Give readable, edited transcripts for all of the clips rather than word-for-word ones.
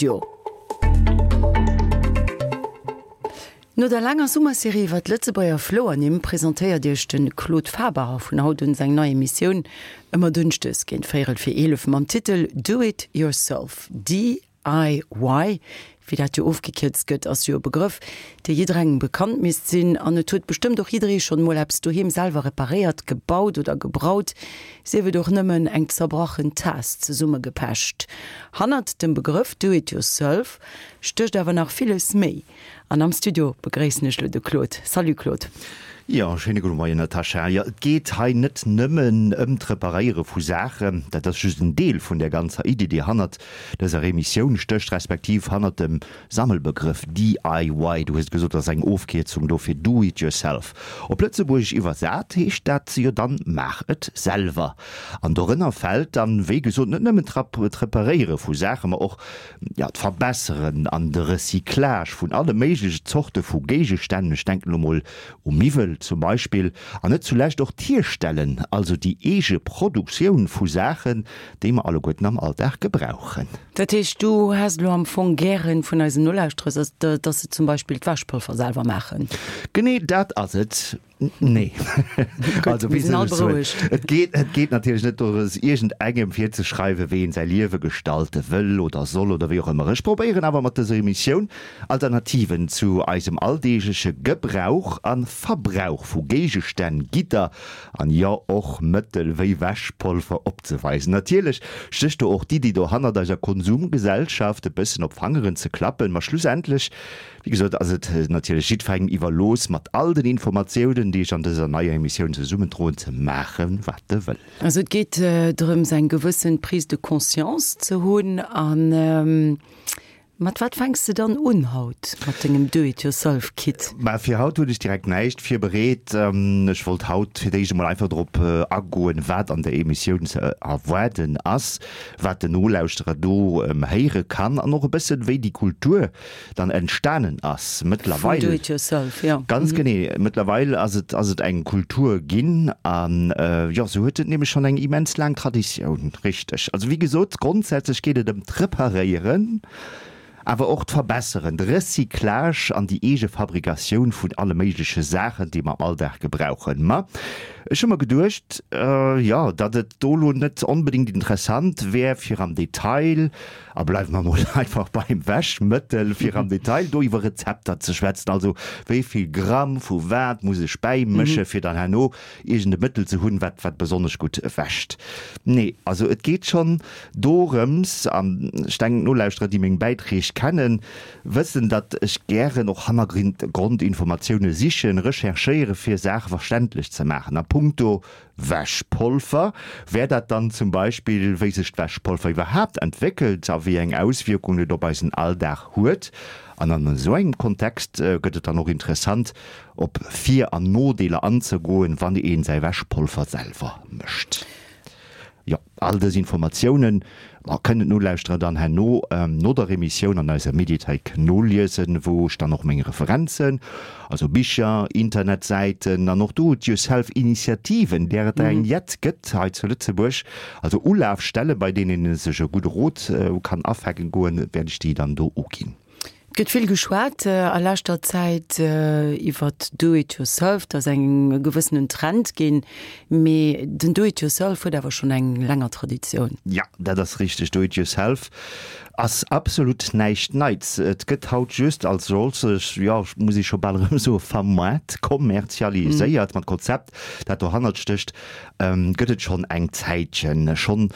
Studio. No der laanger Summerserie iwwer d'Lëtzebuerger Flouernimm presentéiert Iech de Claude Faber vun haut un seng nei Emissioun ëmmer dënschdes géint véierel vir 11 mam Titel Do It Yourself, DIY. Wéi dat jo ofgekierzt gëtt, ass jo e Begrëff, dee jidderengem bekannt misst sinn. An et huet bestëmmt och jidderee schonn emol eppes doheem selwer reparéiert, gebaut oder gebraut. Sief et och nëmmen eng zerbrachen Taass zesummegepecht. Hannert dem Begrëff Do it yourself stécht awer nach villes méi. An am Studio begréissen ech lo de Claude. Salut Claude. Jo, schéine gudde Moien Natascha. Jo, et geet hei net nëmmen ëm d'Reparéiere vu Saachen, dat ass just en Deel vun där ganzer Iddi, déi hannert dëser Emissioun stécht, respektiv hannert dem Sammelbegrëff DIY, du hues et gesot, ass eng Ofkierzung do fir Do it yourself. Op Lëtzebuergesch iwwersat heescht dat jo dann Maach et selwer. An dorënner fält dann, wéi gesot, net nëmmen d'Reparéiere vu Saachen, ma och, jo, d'Verbesseren an de Recyclage vun alle méigleche Zorte vu Géigestänn, ech denken elo mol u Miwwel zum Beispill, an net zulescht och d'Hierstellen, also déi eege Produktioun vu Saachen, déi mer alleguerten am Alldag gebrauchen. Dat heescht, du häss elo am Fong gären vun eisen Nolauschterers, dass se zum Beispill d'Wäschpolver selwer maachen? Genee dat ass et. Nee. Gutt, mir sinn all berouegt. Et geet, et geet natierlech net dorëms, iergendengem virzeschreiwen, wéi een säi Liewe gestalte wëll oder soll oder wéi och ëmmer. Ech probéieren awer mat dëser Emissioun Alternativen zu eisem alldeegleche Gebrauch a Verbrauch vu Géigestänn, Gidder An jo, och Mëttel wéi Wäschpolver opzeweisen. Natierlech stécht do och d'Iddi dohannert, eiser Konsumgesellschaft e bëssen op d'Fangeren ze klappen. Ma schlussendlech, wéi gesot, ass et natierlech jiddwerengem iwwerlooss, mat all den Informatiounen, déi ech an dëser neier Emissioun zesummendroen, ze maachen, wat e wëll. Also et geet drëms, eng gewëssen Prise de conscience ze hunn an Mat wat fänks de dann un haut mat dengem Do-it-yourself-Kit? Mä fir haut hunn ech direkt näischt virbereet. Ech wollt haut fir d'éischt emol einfach drop agoen, wat an der Emissioun ze erwaarden ass, wat den Nolauschterer do héiere kann an och e bëssen, wéi déi Kultur dann entstanen ass. Vum Mëttlerweil. Do-it-yourself, jo. Ganz genee. Mëttlerweil ass et, ass et eng Kultur ginn an, jo, sou huet et nämlech schonn eng immens laang Traditioun. Richteg. Also wéi gesot, grondsätzlech geet et ëm d'Reparéieren, awer och d'Verbesseren, de Recyclage an déi eege Fabrikatioun vun alle méigleche Saachen, déi mer am Alldag gebrauchen. Ma ech hu mer geduecht, jo, datt et do elo net onbedéngt interessant wär, fir am Detail, a bleiwe mer mol einfach beim Wäschmëttel, fir am Detail do iwwer Rezepter ze schwätzen, also wéi vill Gramm vu wat muss ech bäimësche fir dann herno iergend e Mëttel ze hunn, wat wat besonnesch gutt wäscht. Nee, also et geet schonn dorëms, an ech denken d'Nolauschterer, déi meng Bäitreeg kennen, wëssen, datt ech gären och Hannergrondinformatioune sichen, recherchéiere fir Saache verständlech ze maachen. A punkto Wäschpolver wär dat dann zum Beispill, wéi sech d'Wäschpolver iwwerhaapt entwéckelt a wéi eng Auswierkungen et op eisen Alldag huet. An an esou engem Kontext gëtt et dann och interessant, op Vir an Nodeeler anzegoen, wann een säi Wäschpolver selwer mécht. Jo, all dës Informatiounen kënnen d'Nolauschterer dann herno no der Emissioun an eiser Mediathéik noliesen, wou ech dann och meng Referenzen, also Bicher, Internetsäiten an och Do-it-yourself-Initiativen, där et der eng jett gëtt hei zu Lëtzebuerg, also Ulafstelle bei deenen ee sech e gudde Rot kann afänken goen, wäert ech déi dann do uginn. Et gëtt vill geschwat a leschter Zäit iwwert Do it yourself, et ass eng e gewëssenen Trend ginn, mee den Do it yourself huet awer schonn eng länger Traditioun. Jo, dat ass richteg, Do it yourself ass absolut näischt Neits. Et gëtt haut just als solches, jo, muss ee scho bal erëm soen, vermaart, kommerzialiséiert. Ma d'Konzept, dat dohannert stécht, gëtt et schonn eng Zäitchen. Schonn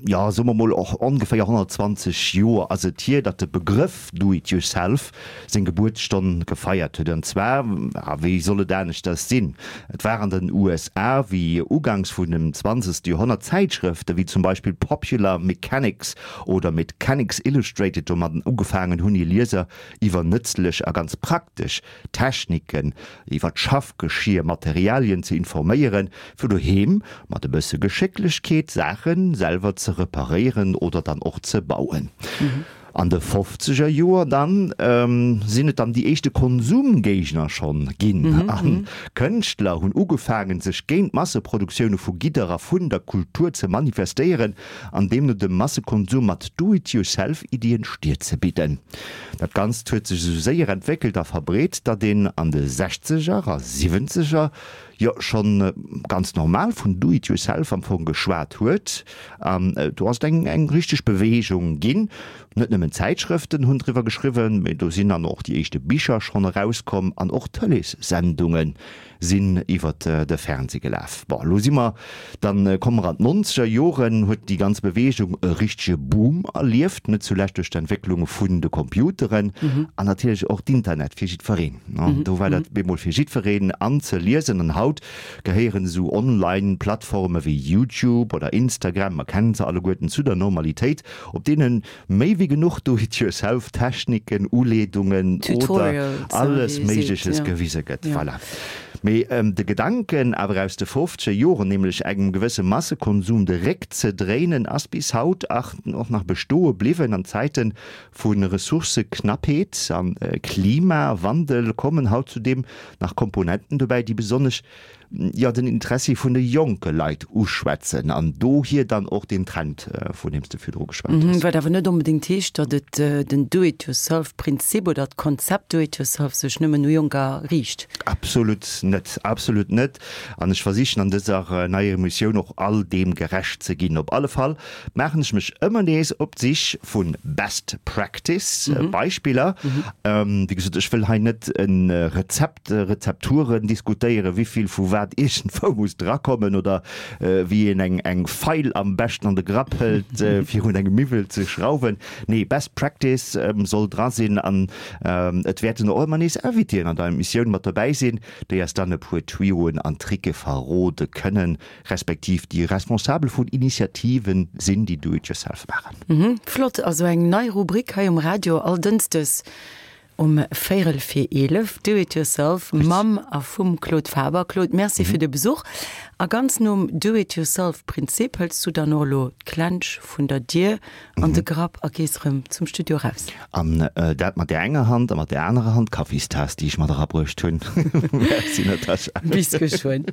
jo, soe mer mol och ongeféier 120 Joer ass et hier, datt de Begrëff Do it yourself seng Gebuertsstonn gefeiert huet. An zwar, a wéi soll et aneschters sinn, et war an den USA, wéi uganks vun dem zwanzegste Joerhonnert Zäitschrëfte wéi zum Beispill Popular Mechanics oder Mechanics Illustrated domadden ugefaangen hunn, hir Lieser iwwer nëtzlech a ganz praktesch Techniken, iwwer d'Schaffgeschier, Materialien ze informéieren, fir doheem mat e bësse Geschécklechkeet Saache selwer ze reparéieren oder dann och ze bauen. An de fofzeger Joer dann sinn et dann déi éischte Konsumgéigner schonn ginn a Kënschtler hunn ugefaangen, sech géint d'Masseproduktioune vu Gidder a vun der Kultur ze manifestéieren an deemno dem Massekonsum mat Do-it-yourself-Iddien d'Stier ze bidden. Dat Ganzt huet sech esou séier entwéckelt a verbreet, datt een an de Sechzeger a Siwwenzeger jo schonn ganz normal vun Do-it-yourself am Fong geschwat huet. An do ass et eng eng richteg Beweegung ginn. Net nëmmen Zäitschrëften hunn driwwer geschriwwen, mee do sinn dann och déi éischte Bicher schonn erauskomm an och Tëleessendunge sinn iwwer de Fernsee gelaf. Bon, elo si mer, dann komme mer an d'nonzeger Joren, huet déi ganz Beweegung e richtege Boom erlieft, net zulescht duerch d'Entwécklung vun de Computeren an natierlech och d'Internet fir jiddwereen. Do war dat bemol fir jiddwereen anzeliesen an haut gehéieren esou Online-Plattforme wéi YouTube oder Instagram, mer kennen se alleguerten, zu der Normalitéit, op deene méi wéi genuch Do-it-yourself-Techniken, Uleedungen oder alles Méigleches gewise gëtt. Voilà. Mee de Gedanken awer aus de fofzeger Joren, nämlech engem gewësse Massekonsum de Réck ze dréinen, ass bis haut och nach bestoe bliwwen. An Zäite vu Ressourcëknappheet a Klimawandel kommen haut zudeem nach Komponenten dobäi, déi besonnesch jo den Interessi vun de jonke Leit uschwätzen an dohier dann och deen Trend, vun deem s de virdru geschwat hues. Wat awer net onbedéngt heescht, datt et den Do-it-yourself-Prinzip oder d'Konzept Do-it-yourself sech nëmmen u Jonker riicht. Absolut net, absolut net. An ech versichen an dëser neier Emissioun och all deem gerecht ze ginn. Op alle Fall maachen ech mech ëmmer nees op d'Sich vu Best Practice Beispiller. Wéi gesot, ech wëll hei net e Rezept, Rezepturen diskutéieren, wéivill vu wat iergendwou muss drakommen oder wéi een eng eng Feil am beschten an de Grapp hëlt fir un engem Miwwel ze schrauwen. Nee, Best Practice soll dra sinn an et wäerten och ëmmer nees Invitéen an der Emissioun mat dobäi sinn, déi eis dann e puer Tuyauxen an Tricke verrode kënnen. Respektiv déi Responsabel vun Initiativen sinn, déi Do it yourself maachen. Flott, also eng nei Rubrik hei um Radio all Dënschdes um véierel vir 11, Do it yourself mam a vum Claude Faber. Claude, Merci fir de Besuch. A ganz nom Do it yourself Prinzip hëls du dann och elo d'Klensch vun der Dier an de Grapp a gees erëm zum Studio raus. An dat mat där enger Hand a mat där anerer Hand d'Kaffistaass, déi ech mat erabruecht hunn. Merci Natascha. Bis geschwënn.